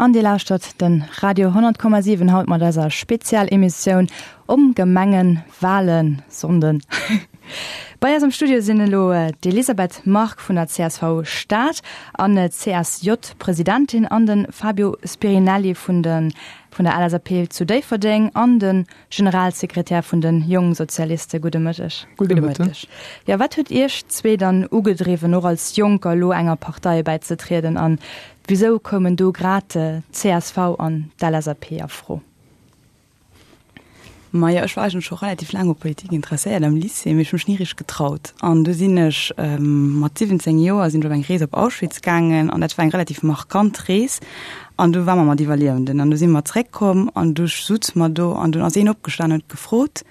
An Dir lauschtert de Radio 100,7 haut mat eiser Spezialemissioun om Gemengenwahlen-Sonnden. Bei eis am Studio sinn elo d'Elisabeth Margue vun der csv Stad an CSJ-Presidentin an de Fabio Spirinelli vun de vun der LSAP zu Déifferdeng an de Generalsekretär vun de Jongsozialiste. Gudde Mëtteg. Gudde Mëtteg. Jo, wat huet Iech zwee dann ugedriwwen, och als Jonker elo enger Partei bäizetrieden an wisou koumen do grad d'CSV an d'LSAP a Fro? Majo, ech war eigentlech scho relativ laang u Politik interesséiert am Lycée, mee ech hu mech ni richteg getraut. An du sinn ech mat 17 Joer sinn ech op eng Rees op Auschwitz gaangen an dat war eng relativ markant Rees. An du war mer mat Iwwerliewenden an du si mer zréckkomm an du sutze mer do an dunn ass een opgestan huet gefrot,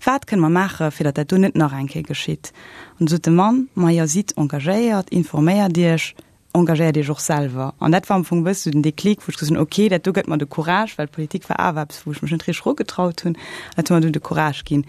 Wat kënne mer maache fir datt dat do net nach eng Kéier geschitt? An du sot de Mann, Majo, sidd engagéiert, informéiert Iech, engagéiert Iech och selwer. An dat war am Fong e bësse sou den Déclic, wou ech gesot hunn, ok, dat do gëtt mer de Courage, well Politik war awer eppes, wou ech mech net richteg erugetraut hunn. An dat huet mer dunn de Courage ginn.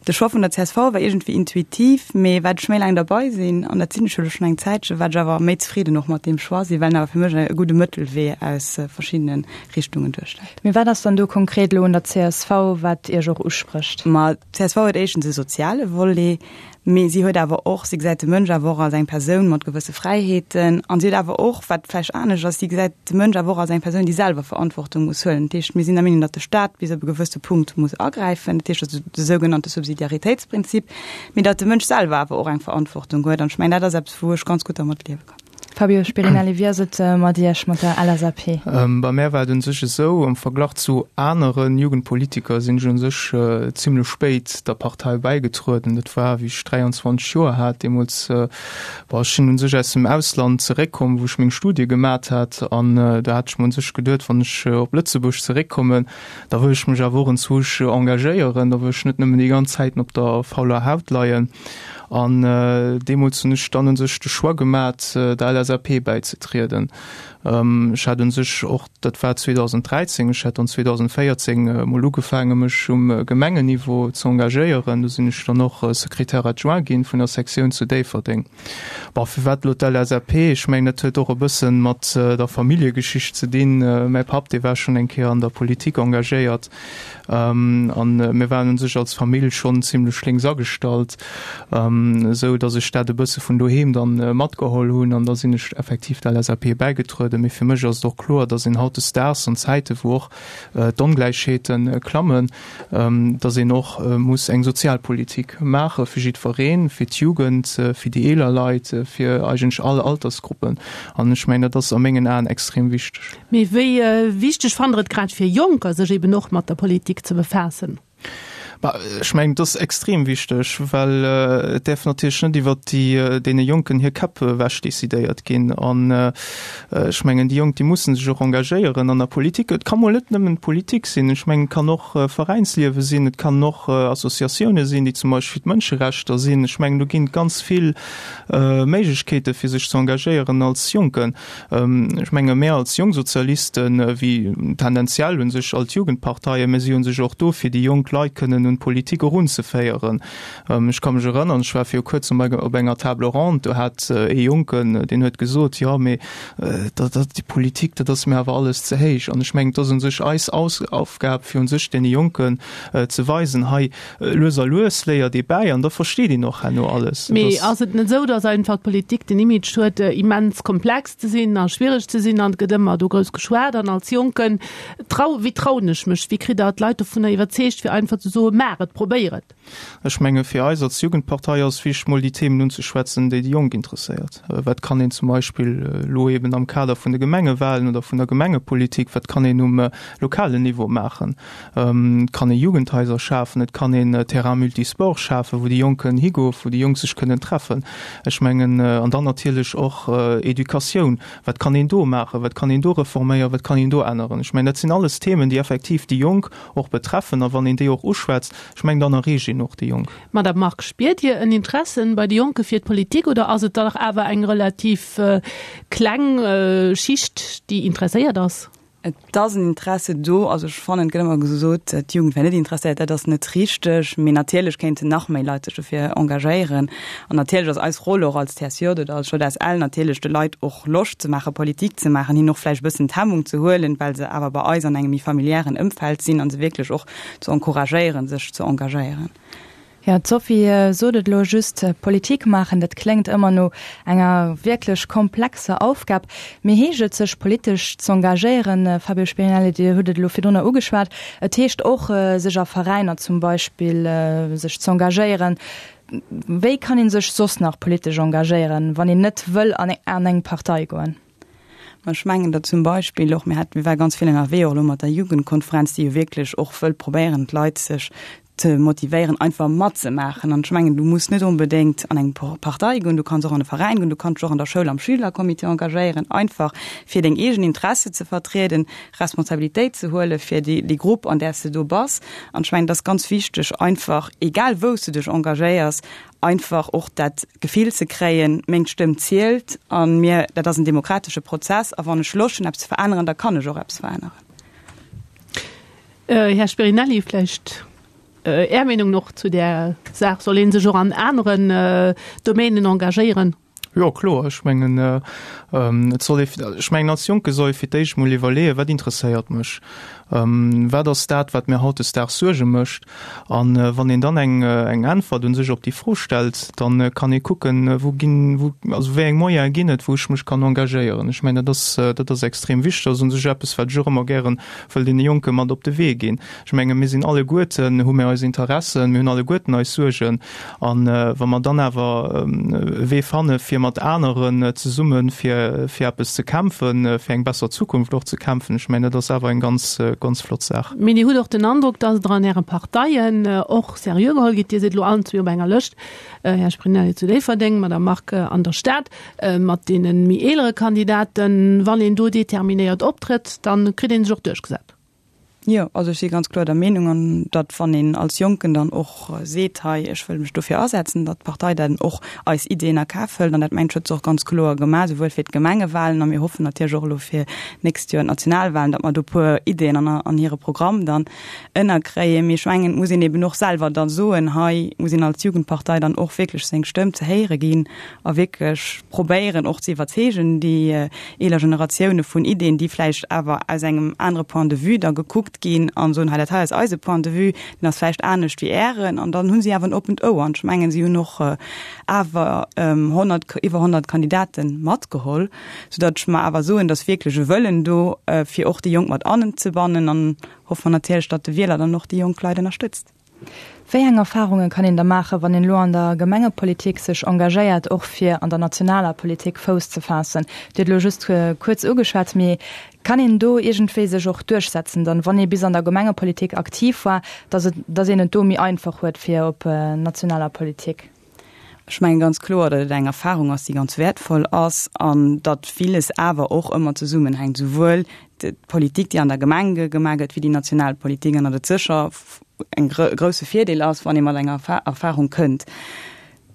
De Choix vun der csv war iergendwéi intuitiv, mee wat ech méi laang derbei sinn, an dat sinn ech jo elo schonn eng Zäitche, wat ech awer méi zefridden och mat deem Choix sinn, well en awer fir mech e gudde Mëttelwee aus verschiddene Richtungen duerstellt. Mee wat ass dann do konkret elo un der csv, wat Iech och usprécht? Ma d'CSV huet éischtens e soziale Volet, Mee si huet awer och, si gesäit de Mënsch awer och als eng Persoun mat gewësse Fräiheeten an si huet awer och, wat vläicht anescht ass, si gesäit de Mënsch awer och als eng Persoun, déi selwer Verantwortung muss huelen. Dat heescht, mir sinn der Meenung, datt de Staat bis op e gewësse Punkt muss agräifen, dat heescht also de sougenannte Subsidiaritéitsprinzip, mee datt de Mënsch selwer awer och eng Verantwortung huet. An ech mengen, dat ass eppes, wou ech ganz gutt dermat liewe kann. Fabio Spirinelli, wéi ass et mat Iech, mat der LSAP? Bei mär war et un sech esou, am Verglach zu anere Jugendpolitiker sinn ech un sech zimlech spéit der Partei bäigetrueden. Dat war wéi ech 23 Joer hat. Deemools, bon, ech sinn un sech aus dem Ausland zeréckkomm, wou ech meng Studie gemat hat an do hat ech mer un sech geduet, wann ech op Lëtzebuerg zeréckkommen, da wëll ech mech awer och enzwousch engagéieren, da wëll ech net nëmmen déi ganz Zäiten op der fauler Haut leien. An deemools hunn ech dann u sech de Choix gemat, der LSAP bäizetrieden. Ech hat u sech och, dat war 2013, ech hat dann 2014 emol ugefaange mech um Gemengenniveau ze engagéieren. Do sinn ech dann och Secrétaire adjoint ginn vun der Sektioun zu Déifferdeng. Bon, firwat elo d'LSAP? Ech mengen, dat huet och e bësse mat der Familljegeschicht ze dinn. Mäi Papp, dee war schonn eng Kéier an der Politik engagéiert. An mir waren un sech als Famill schonn zimlech lénks agestallt, esou datt ech dat e bësse vun doheem dann matgeholl hunn an da sinn ech effektiv der LSAP bäigetrueden. Mee fir mech ass et och kloer, datt een hautdesdaags an Zäite wou och d'Ongläichheete klammen, datt een och muss eng Sozialpolitik maache fir jiddwereen, fir d'Jugend, fir déi eeler Leit, fir eigentlech all Altersgruppen. An ech mengen, dat ass a mengen Aen extrem wichteg. Mee wéi wichteg fannt Der et grad fir Jonker, sech eben och mat der Politik ze befaassen? Bah, ech mengen, et ass extrem wichteg, well et däerf natierlech net iwwert déi, deene Jonken hir Käpp ewech decidéiert ginn. An ech mengen, déi Jonk, déi mussen sech och engagéieren an der Politik. Et ka mol net nëmmen d'Politik sinn. Ech mengen, et kann och Veräinsliewe sinn, et kann och Associatioune sinn, déi zum Beispill fir d'Mënscherechter sinn. Ech mengen, do ginn et ganz vill Méiglechkeete fir sech ze engagéieren als Jonken. Ech menge mär als Jongsozialisten, wéi tendenziell u sech all d'Jugendparteien, mir si u sech och do, fir déi jonk Leit kënnen un d'Politik erunzeféieren. Ech ka mech erënnern, ech war viru kuerzem op enger Table ronde, do hat ee Jonken, deen huet gesot, jo mee dat, dat, déi Politik, dat ass mir awer alles ze héich. An ech mengen, et ass u sech eis Aufgab, fir u sech deene Jonken ze weisen, hei, Lues a lues léiert ee bäi an da versteet een och herno alles. Mee ass et net esou, datt einfach d'Politik den Image huet, immens komplex ze sinn a schwiereg ze sinn an et gëtt ëmmer do grouss geschwat an als Jonken trau, wéi trauen ech mech, wéi kritt Der d'Leit dovunner iwwerzeegt, fir einfach ze soen, maach et, probéier et? Ech menge fir eis als Jugendpartei ass wichteg mol déi Themen unzeschwätzen, déi déi Jonk interesséiert. Wat kann een zum Beispill elo eben am Kader vun de Gemengewahlen oder vun der Gemengepolitik, wat kann een um lokalen Niveau maachen? Et kann ee Jugendhaiser schafen, et kann een Terrain multisport schafen, wou déi Jonk kënnen higoen, wou déi Jonk sech kënnen treffen. Ech mengen, an dann natierlech och Educatioun, wat kann een do maachen, wat kann een do reforméieren, wat kann een do änneren? Ech mengen, dat sinn alles Themen, déi effektiv déi Jonk och betreffen. A wann een déi och uschwätzt, ech mengen, dann erreecht een och déi Jonk. Madame Margue, spiert Dir en Interesse bei de Jonke fir d'Politik oder ass et dach awer eng relativ kleng Schicht, déi interesséiert ass? Et ass en Interesse do. Also ech fannen, et gëtt ëmmer gesot, d'Jugend wär net interesséiert. Dat ass net richteg. Mee natierlech kéinten nach méi Leit sech dofir engagéieren. An natierlech ass eis Roll och als TSJ oder als JSL natierlech de Leit och Loscht ze maachen, Politik ze maachen, hinnen och vläicht e bëssen d'Hemmung ze huelen, well se awer bei eis an engem méi familiären Ëmfeld sinn, a se wierklech och ze encouragéieren, sech ze engagéieren. Jo, d'Sophie sot et elo just, Politik maachen, dat kléngt ëmmer no enger wierklech komplexer Aufgab. Mee heescht et, sech politesch z'engagéieren, Fabio Spirinelli, Dir hutt et elo virdrunner ugeschwat, et heescht och, sech a Veräiner zum Beispill sech z'engagéieren. Wéi kann ee sech soss nach politesch engagéieren, wann een net wëll an eng Partei goen? Ma ech mengen, datt zum Beispill och, mir hat, mir ware ganz vill ënnerwee och elo mat der Jugendkonferenz, déi jo wierklech och wëll probéieren, d'Leit sech ze motivéieren, einfach matzemaachen. An ech mengen, du muss net onbedéngt an eng Partei goen, du kanns och an e Veräin goen, du kanns dech och an der Schoul am Schülercomité engagéieren, einfach fir deng eegen Interesse ze vertrieden, Responsabilitéit ze huele fir déi, déi Grupp, an där s de do bass. An ech mengen, et ass ganz wichteg, einfach, egal wou s du dech engagéiers, einfach och dat Gefill ze kréien, meng Stëmm zielt a mir, dat ass en demokratesche Prozess a wann ech Loscht hunn eppes ze veränneren, da kann ech och eppes veränneren. Här Spirinelli, vläicht Är Meenung och zu där Saach? Soll ee sech och an aneren Domänen engagéieren? Jo, kloer. Ech mengen, et soll ee, ech mengen als Jonke soll ee fir d'éischt emol iwwerleeën, wat interesséiert mech? Wat ass dat, wat mir hautdesdaags Suerge mécht? A wann een dann eng eng Äntwert u sech op déi Fro stellt, da kann ee kucken, wou ginn, wou, also wéi eng Moyene ginn et, wou ech mech kann engagéieren. Ech mengen, dat ass, dat ass extrem wichteg. Dat ass u sech eppes, wat ech och ëmmer gären wëll deene Jonke mat op de Wee ginn. Ech menge mir sinn alleguerten, hu mir eis Interessen, mir hunn alleguerten eis Suergen. A wa mer dann awer e Wee fanne fir mat aneren zesumme fir fir eppes ze kämpfen, fir eng besser Zukunft och ze kämpfen, ech mengen dat ass awer eng ganz, ganz flott Saach. Mee Dir hutt och den Androck, datt Der an Äre Parteien och seriö geholl gitt. Dir sidd elo allen zwee op enger Lëscht, Här Sprinelli zu Déifferdeng, Madame Margue an der Stad, mat deene méi eelere Kandidaten. Wann een do determinéiert optrëtt, da kritt ee sech och duerchgesat. Jo, also ech si ganz kloer der Meenung, an datt wann een als Jonken dann och seet, hei ech wëll mech dofir asetzen, datt d'Partei dann och eis Ideeën a Kaf hëlt. An dat mengt ech huet se och ganz kloer gemaach, souwuel fir d'Gemengewahlen a mir hoffen natierlech och elo fir d'nächst Joer d'Nationalwahlen, datt mer do e puer Ideeën an an hire Programm dann ënnerkréien. Mee ech mengen, et muss een eben och selwer da soen, hei muss een als Jugendpartei dann och wierklech seng Stëmm ze héiere ginn a wierklech probéieren och ze iwwerzeegen, déi eeler Generatioune vun Ideen, déi vläicht awer aus engem anere Point de vue da gekuckt ginn an soen, hei dat hei ass eise Point de vue, deen ass vläicht anescht wéi Ären. An dann hu si awer en oppent Ouer. An ech mengen, si hunn och awer 100, iwwer 100 Kandidate matgeholl, soudatt ech mer awer soen, datt wierklech e Wëllen do, fir och déi Jonk mat anzebannen. An hoffe mer natierlech, datt de Wieler dann och déi jonk Leit ënnerstëtzt. Wéi eng Erfarunge kann een da maachen, wann een elo an der Gemengepolitik sech engagéiert, och fir an der nationaler Politik Fouss ze faassen? Dir hutt elo just kuerz ugeschwat, mee kann een do iergendwéi sech och duerchsetzen dann, wann ee bis an der Gemengepolitik aktiv war, dass et, dass een et do méi einfach huet fir op nationaler Politik? Ech mengen ganz kloer, datt et eng Erfahrung ass, déi ganz wäertvoll ass an datt villes awer och ëmmer zesummenhänkt, souwuel d'Politik, déi an der Gemeng gemaach gëtt, wéi déi national Politik, an datt et sécher e grousse Virdeel ass, wann ee mat enger Erfahrung kënnt.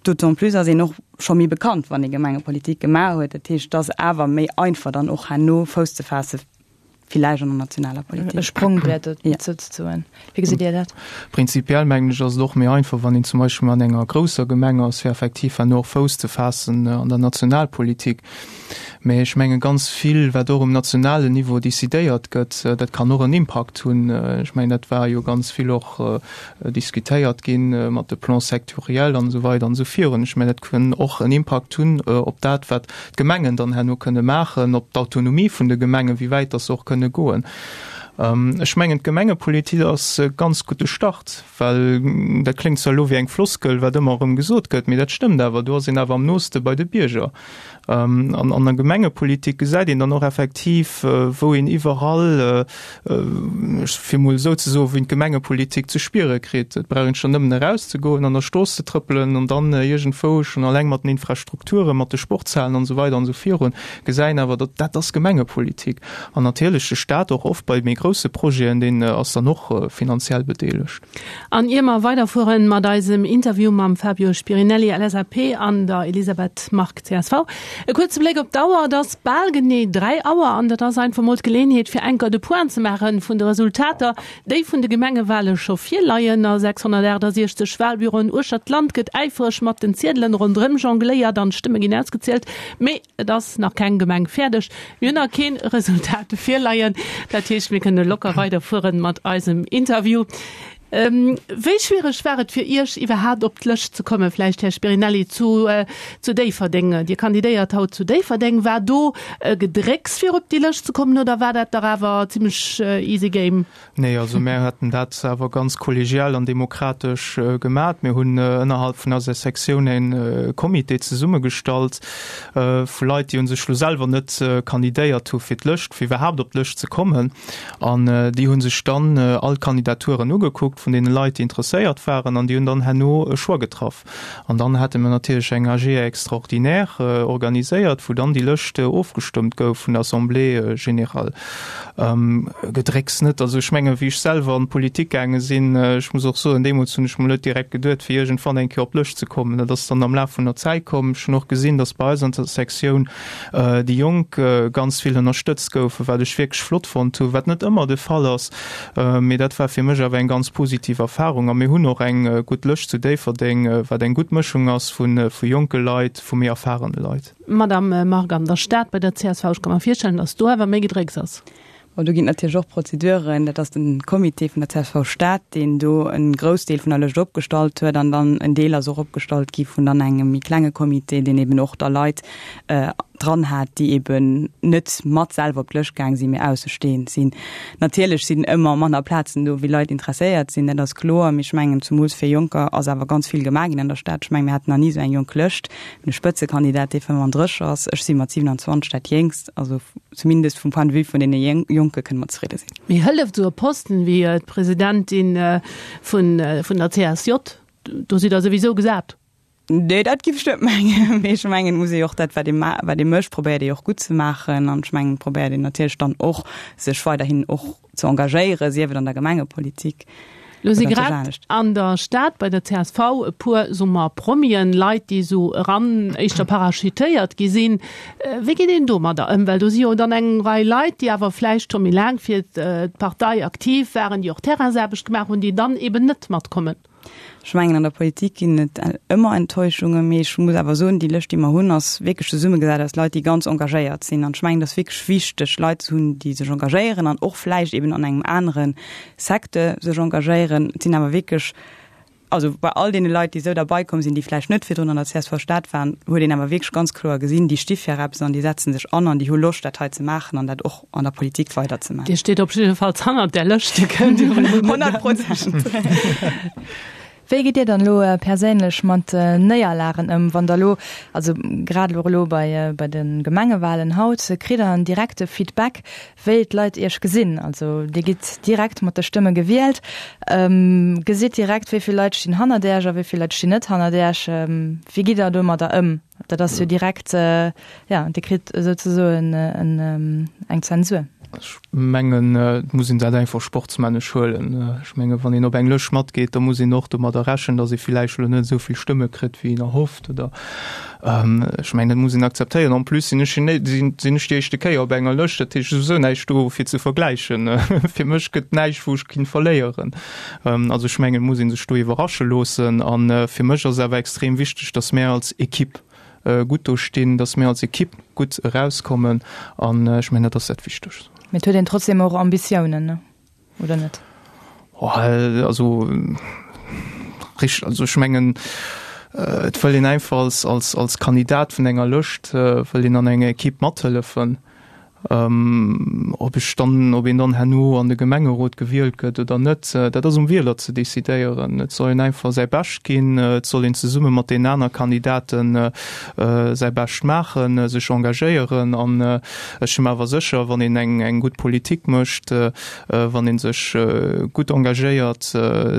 D'autant plus ass een och scho méi bekannt, wann ee Gemengepolitik gemaach huet. Dat heescht, et ass awer méi einfach dann och herno Fouss ze faasse villäicht an der nationaler Politik. E Sprongbrett souzesoen. Wéi gesitt Dir dat? Prinzipiell mengen ech, ass et och méi einfach, wann een zum Beispill an enger grousser Gemeng ass, fir effektiv herno och Fouss ze faassen an der Nationalpolitik. Mä ech menge ganz vill, wat och um nationalen Niveau decidéiert gëtt, dat kann och en Impakt hunn. Ech mengen, dat war jo ganz vill och diskutéiert ginn mat de Plans sectoriels an esou weider an esou virun. Ech mengen, dat kann och en Impakt hunn op dat, wat d'Gemengen dann herno kënne maachen, op d'Autonomie vun de Gemengen, wéi wäit dass se och kënne goen. Ech mengen, d'Gemengepolitik ass e ganz gudde Start, well dat kléngt zwar elo wéi eng Floskel, wat ëmmer erëm gesot gëtt, mee dat stëmmt awer, do ass een awer am nooste bei de Bierger. An an der Gemengepolitik gesäit een dann och effektiv, wou een iwwerall, fir emol esou ze soen, wou een d'Gemengepolitik ze spiere kritt. Et brauch een schonn nëmmen erauszegoen, an der Strooss ze trëppelen an dann iergendwou schonn alleng mat den Infrastrukturen, mat de Sportshalen an esou weider an esou virun, gesäit een awer, datt dat ass Gemengepolitik. An natierlech de Stat och oft bei méi grousse. grousse Projeten, deen ass dann och finanziell bedeelegt. An ier mer weiderfueren mat eisem Interview mam Fabio Spirinelli, LSAP, an der Elisabeth Margue, csv, e kuerze Bléck op d'Auer. Et ass bal genee 3 Auer an dat ass einfach mol d'Geleenheet fir enker de Point ze maache vun de Resultater, déi vun de Gemengewale scho virleien. A 668 Walbüroen uechtert d'Land gëtt äifereg mat den Ziedelen ronderëm jongléiert an d'Stëmme ginn ausgezielt. Mee et ass nach keng Gemeng fäerdeg. Mir hunn nach keen Resultat virleien. Dat heescht, mir kënne locker weiderfueren mat eisem Interview. Wéi schwiereg war et fir Iech iwwerhaapt op d'Lëscht ze kommen? Vläicht, Här Spirinelli, zu zu Déifferdeng. Dir kandidéiert haut zu Déifferdeng. War do e Gedrécks fir op déi Lëscht ze kommen oder war dat dach awer zimmlech easy game? Nee, also mär haten dat awer ganz kollegial an demokratesch gemat. Mir hunn ënnerhalb vun eiser Sektioun e Comité zesummegestallt vu Leit, déi u sech lo selwer net kandidéiert hu fir d'Lëscht, fir iwwerhaapt op d'Lëscht ze kommen. An déi hu sech dann all d'Kandidaturen ugekuckt vun deene Leit, déi interesséiert waren, an déi hunn dann herno e Choix getraff. An dann hate mir natierlech eng AG extraordinaire organiséiert, wou dann déi Lëscht ofgestëmmt gouf vun der Assemblée générale. Gedrécks net. Also ech menge wéi ech selwer an d'Politik gaange sinn, ech muss och soen, deemools hunn ech mol net direkt geduet, fir iergendwann eng Kéier op d'Lëscht ze kommen. Dat ass dann am Laf vun der Zäit komm. Ech hunn och gesinn, datt bei eis an der Sektioun déi Jonk ganz vill ënnerstëtzt goufen, wat ech wierklech flott fonnt hunn, wat net ëmmer de Fall ass. Mee dat war fir mech awer eng ganz positiv Erfarung. A mir hunn och eng gutt Lëscht zu Déifferdeng, wat eng gutt Mëschung ass vu jonke Leit, vu méi erfarene Leit. Madame Margue, an der Stad bei der csv, ech ka mer virstellen, datt do awer méi Gedrécks ass. Bon, do ginn et natierlech och Prozeduren. Dat ass de Comité vun der csv Stad, deen do e Groussdeel vun der Lëscht opgestallt huet. An dann en Deel ass och opgestallt gi vun dann engem méi klenge Comité, deen eben och da Leit dran hat, déi eben net mat selwer op d'Lëscht gaang sinn, mee aussestehend sinn. Natierlech sinn ëmmer manner Plazen do, wéi Leit interesséiert sinn, dat ass kloer. Mee ech mengen, zumools fir Jonker ass awer ganz vill gemaach ginn an der Stad. Ech mengen, mir haten nach ni esou eng jonk Lëscht. Mir hunn e Spëtzekandidat, dee 35 ass. Ech si mat 27 dat Jéngst. Also zumindest vum Point de vue vun deene Jonke kënne mer zefridde sinn. Mee hëlleft esou e Posten wéi d'Presidentin vun der CSJ? Do sidd Der souwisou gesat. Nee, dat giff ech net mengen. Mee ech mengen, et muss ee jo och dat, wat ee ma-, wat ee mécht, probéiert ee jo och gutt ze maachen. An ech mengen, et probéiert een natierlech dann och, sech weiderhin och ze engagéieren, sief et an der Gemengepolitik Lo si grad an der Stad bei der csv e puer, soe mer, Promien, Leit, déi esou eran éischter parachutéiert gi sinn. Wéi geet een domadder ëm? Well do si jo dann eng Rei Leit, déi awer vläicht scho méi laang fir d'Partei aktiv waren, déi och Terrainsaarbecht gemaach hunn, déi dann eben net matkommen. Ech mengen, an der Politik ginn et ëmmer Enttäuschungen, mee ech muss awer soen, déi Lëscht, déi mer hunn, ass wierklech zesummegesat aus Leit, déi ganz engagéiert sinn. An ech mengen, et ass wierklech wichteg, Leit ze hunn, déi sech engagéieren an och vläicht eben an engem anere Secteur sech engagéieren. Et sinn awer wierklech, also bei all deene Leit, déi esou derbei komm sinn, déi vläicht net virdrun an der csv Stad waren, huet een awer wierklech ganz kloer gesinn, déi sti fir eppes an déi setze sech an an déi hu Loscht, dat hei ze maachen an dat och an der Politik weider ze maachen. Dir steet op jiddefalls hannert där Lëscht, Dir kënnt jo elo net 100%. Wéi gitt Dir dann elo perséinlech mat Néierlagen ëm, wann Der elo, also grad elo elo bei bei de Gemengewalen haut, kritt Der en direkte Feedback, wéi d'Leit Iech gesinn? Also Dir gitt direkt mat de Stëmme gewielt, gesitt direkt, wéi vill Leit stinn hannert Iech a wéi vill Leit stinn net hannert Iech. Wéi gitt Der domadder ëm? Dat ass jo direkt, ja, Dir kritt souzesoen eng Zensur. Ech mengen, et muss een dat einfach sportsmännesch huelen. Ech menge wann een op eng Lëscht matgeet, da muss een och domadder rechnen, datt ee villäicht elo net esou vill Stëmme kritt, wéi een erhofft oder ech mengen, dat muss een akzeptéieren. En plus sinn ech sinn ech déi éischte Kéier op enger Lëscht, dat heescht, et ass souwisou näischt do fir ze vergläichen. Fir mech gëtt näischt, wou ech kinnt verléieren. Also ech mengen, et muss ee sech do iwwerrasche loossen. A fir mech ass et awer extrem wichteg, datt mär als Equipe gutt do stinn, datt mir als Equipe gutt erauskommen. An ech mengen, dat ass dat Wichtegst. Mee et huet een trotzdem och Ambitiounen, ne? Oder net? Also richteg, also ech mengen, et wëll een einfach als, als, als Kandidat vun enger Lëscht wëll een an enger Equipe mathëllefen. Ob ech dann, ob een dann herno an de Gemengerot gewielt gëtt oder net, dat ass um Wieler ze decidéieren. Et soll een einfach säi Bescht ginn, et soll een zesumme mat deenen aner Kandidaten säi Bescht maachen, sech engagéieren. An ech si mer awer sécher, wann een eng eng gutt Politik mécht, wann ee sech gutt engagéiert,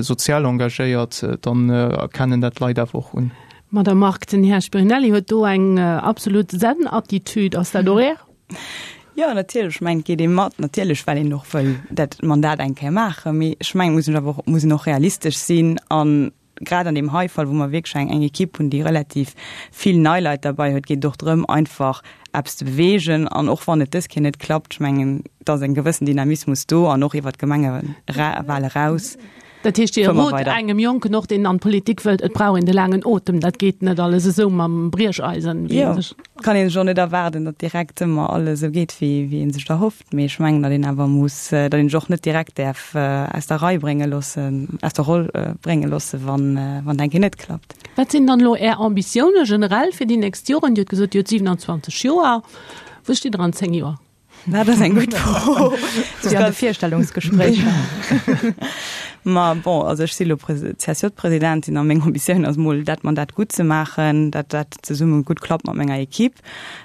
sozial engagéiert, dann erkennen dat d'Leit awer och un. Madame Margue, den Här Spirinelli huet do eng absolut Zen-Attitude. Ass dat och Är? Jo, natierlech, ech mengen, et geet ee mat, natierlech, well een och wëll dat Mandat eng Kéier maachen. Mee ech mengen, et muss een awer och, muss een och realistesch sinn an grad an deem hei Fall, wou mer wierklech eng, eng Ekipp hunn, déi relativ vill nei Leit derbei huet, geet et och drëm, einfach eppes ze beweegen. An och wann et dës Kéier net klappt, ech mengen, et ass e gewëssen Dynamismus do an och iwwert d'Gemengewale eraus. Dat heescht, Dir rot engem Jonken och, deen an d'Politik wëllt, et brauch een de laangen Otem, dat geet net alles esou mam Briecheisen, wéi een sech. Jo, kann een sech och net erwaarden, datt direkt ëmmer alles esou geet, wéi wéi ee sech et erhofft. Mee ech mengen, datt een awer muss, datt een sech och net direkt däerf aus der Rei brénge loossen, aus der Roll brénge loossen, wann wann et eng Kéier net klappt. Wat sinn dann elo Är Ambitioune generell fir déi nächst Joren? Dir hutt gesot, Dir hutt 27 Joer. Wou stitt Der an 10 Joer? Dat ass eng gutt Fro. Wéi an de Virstellungsgespréicher. Ma bon, also ech si lo CSJ-Presidentin a meng Ambitioun ass mol dat Mandat gutt ze maachen, dat dat zesumme gutt klappt mat menger Equipe.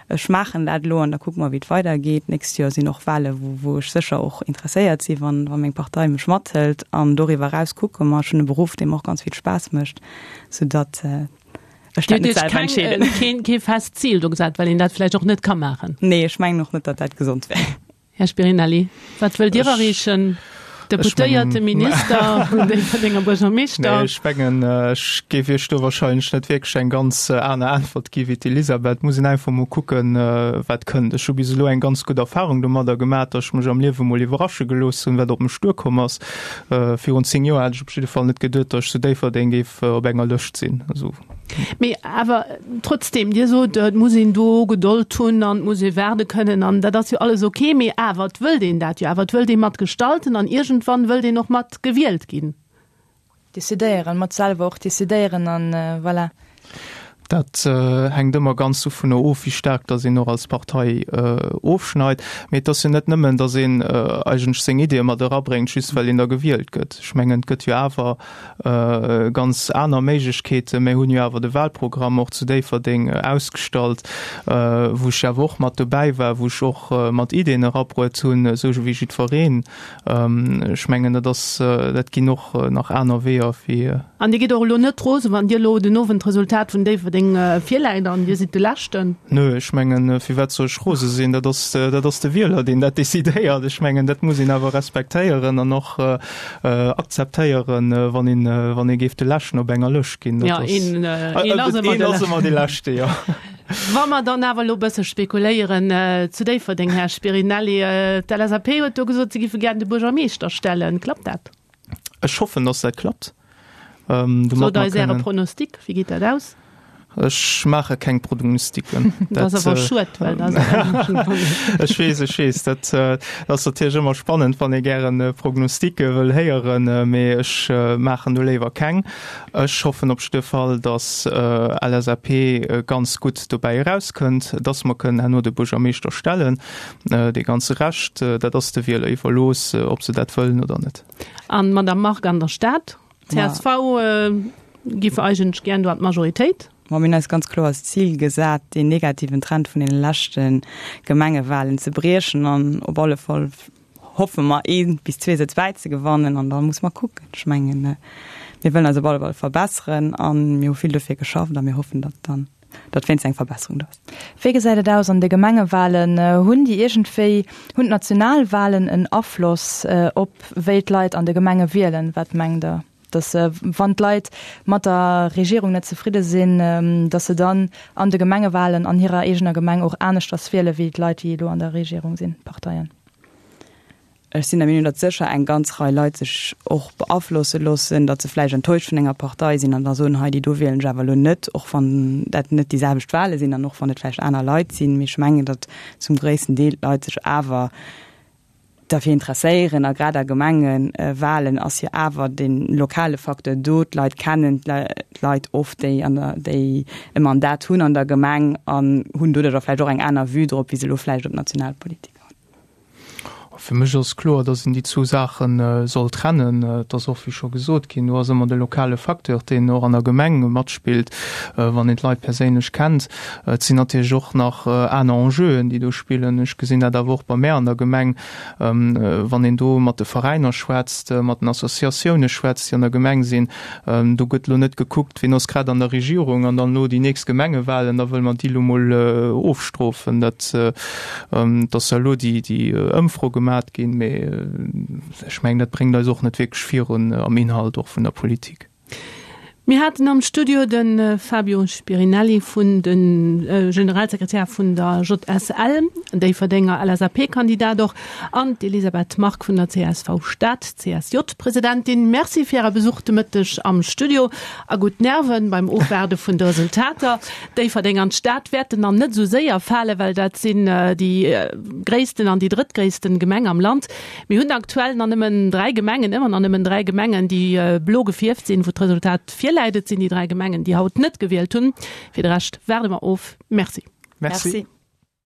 Ech maachen dat elo an da kucke mer wéi et weidergeet. D'nächst Joer sinn och Wale wou wou ech sécher och interesséiert si wann wa meng Partei mech mathëlt. An doriwwer eraus kucke mer. Ech hunn e Beruff dee mer och ganz vill Spaass mécht, soudatt Ech dat net selwer entscheeden. Keen, kee fest Zil do gesat, well een dat vläicht och net ka maachen. Nee, ech mengen och net, datt dat gesond wär. Här Spirinelli, wat wëllt Dir erreechen? Deputéierte, Minister, Déifferdenger Buergermeeschter? Nee, ech mengen, ech géif Iech do wahrscheinlech net wierklech eng ganz aner Äntwert gi wéi d'Elisabeth. Et muss een einfach mol kucken, wat kënnt. Ech hu bis elo eng ganz gutt Erfahrung domadder gemaach, datt ech mech am Liewe mol iwwerrasche gelooss hunn, wat op mech duerkomm ass. Virun 10 Joer hat ech op jidde Fall net geduet, datt ech zu Déifferdeng géif op enger Lëscht sinn. Also. Mee awer trotzdem, Dir sot, et muss een do Gedold hunn an et muss ee waarde kënnen an dat ass jo alles ok, mee awer et wëllt een dat jo awer, et wëllt ee mat gestalten an iergendwann wëllt een och mat gewielt ginn. Decidéieren, mat selwer och decidéieren an voilà. Dat hänkt ëmmer ganz dovunner of, wéi staark datt een och als Partei ofschneit. Mee et ass jo net nëmmen, datt een eigentlech seng Ideeë mat erabréngt, just well een da gewielt gëtt. Ech mengen, et gëtt jo awer ganz aner Méiglechkeeten. Mir hunn jo awer de Wahlprogramm och zu Déifferdeng ausgestallt, wou ech jo awer och mat dobäi war, wou ech och mat Ideeën erabruet hunn, esou wéi jiddwereen. Ech mengen, dat ass, dat ginn och nach aner Weeër wéi. An Dir gitt och elo net rosen, wann Dir elo den Owend d'Resultat vun Déifferdeng virläit an Dir sidd de Leschten? Nö, ech mengen, firwat soll ech rose sinn? Dat ass, dat ass de Wieler, deen dat decidéiert. Ech mengen, dat muss een awer respektéieren an och akzeptéieren, wann een, wann ee géif de Leschten op enger Lëscht ginn. Dat ass, een, een ass ëmmer de ass ëmmer de Leschte, jo. Wa mer dann awer elo e bësse spekuléieren zu Déifferdeng, Här Spirinelli, d'LSAP huet do gesot, se giffe gären de Buergermeeschter stellen. Klappt dat? Ech hoffen, dass dat klappt. Sot eis Äre Pronostic, wéi geet dat aus? Ech maache keng Prognostiken. Dat ass awer schued, well dat Ech weess, ech weess, dat ass natierlech ëmmer spannend, wann ee gären Prognosticke wëll héieren, mee ech maachen do léiwer keng. Ech hoffen op jidde Fall, datt LSAP ganz gutt dobäi erauskënnt, datt mer kënnen herno de Buergermeeschter stellen. Dee ganze Rescht, dat ass de Wieler iwwerlooss, ob se dat wëllen oder net. An d'Madame Margue an der Stad, csv giff eigentlech gären do an d'Majoritéit. Ma mir hunn eis ganz kloer als Zil gesat, deen negativen Trend vun deene leschte Gemengewahlen ze briechen an op alle Fall hoffe mer ee bis zwee Sëtz bäizegewannen an da muss mer kucken. Ech mengen, mir wëllen eis op alle Fall verbesseren a mir hu vill dofir geschafft a mir hoffen, datt dann, datt wéinst eng Verbesserung do ass. Wéi gesäit et aus an de Gemengewahlen? Hunn déi iergendwéi, hunn d'Nationalwahlen en Afloss op wéi d'Leit an de Gemenge wielen? Wat mengt Der? Dass wann d'Leit mat der Regierung net zefridde sinn, dass se dann an de Gemengewahlen an hirer eegener Gemeng och aneschters wiele wéi d'Leit, déi elo an der Regierung sinn, d'Parteien? Ech sinn der Meenung, datt sécher eng ganz Rei Leit sech och beaflosse loossen, datt se vläicht enttäuscht vun enger Partei sinn an da soen, hei déi do wielen ech awer elo net, och wann dat net déi selwecht Wahle sinn an och wann et vläicht aner Leit sinn. Mee ech mengen, datt zum gréissten Deel d'Leit sech awer derfir interesséieren a grad a Gemengewahlen ass jo awer de lokale Facteur do, d'Leit kennen d'Leit oft, déi an der, déi e Mandat hunn an der Gemeng an hunn doduercher vläicht och eng aner Vue drop, wéi se elo vläicht op d'Nationalpolitik hunn. Fir mech ass kloer, datt een déi zwou Saache soll trennen. Et ass och, wéi scho gesot ginn, do ass ëmmer de lokale Facteur, deen och an der Gemeng matspillt, wann een d'Leit perséinlech kennt. Et sinn natierlech och nach aner Enjeuen, déi do spillen. Ech gesinn dat awer och bei mär an der Gemeng, wann een do mat de Veräiner schwätzt, mat den Associatioune schwätzt, déi an der Gemeng sinn. Do gëtt elo net gekuckt, wien ass grad an der Regierung an dann elo déi nächst Gemengewahlen, da wëlle mer déi elo mol ofstrofen. Dat ass ja elo déi Ëmfro gemat ginn, mee ech mengen, dat bréngt eis och net wierklech virun am Inhalt och vun der Politik. Mir haten am Studio de Fabio Spirinelli vun de Generalsekretär vun der JSL, Déifferdenger LSAP-Kandidat och, an d'Elisabeth Margue vun der csv Stad, CSJ-Presidentin. Merci fir Äre Besuch de Mëtteg am Studio a gutt Nerven beim Ofwaarde vun de Resultater. Déifferdeng an d'Stad wäerten nach net esou séier falen, well dat sinn déi gréissten an déi drëttgréissten Gemeng am Land. Mir hunn aktuell nach nëmmen 3 Gemengen, ëmmer nach nëmmen 3 Gemengen, déi blo gefierft sinn, wou d'Resultat virläit. Et sinn déi 3 Gemengen, déi haut net gewielt hunn. Fir de Rescht waarde mer of. Merci. Merci.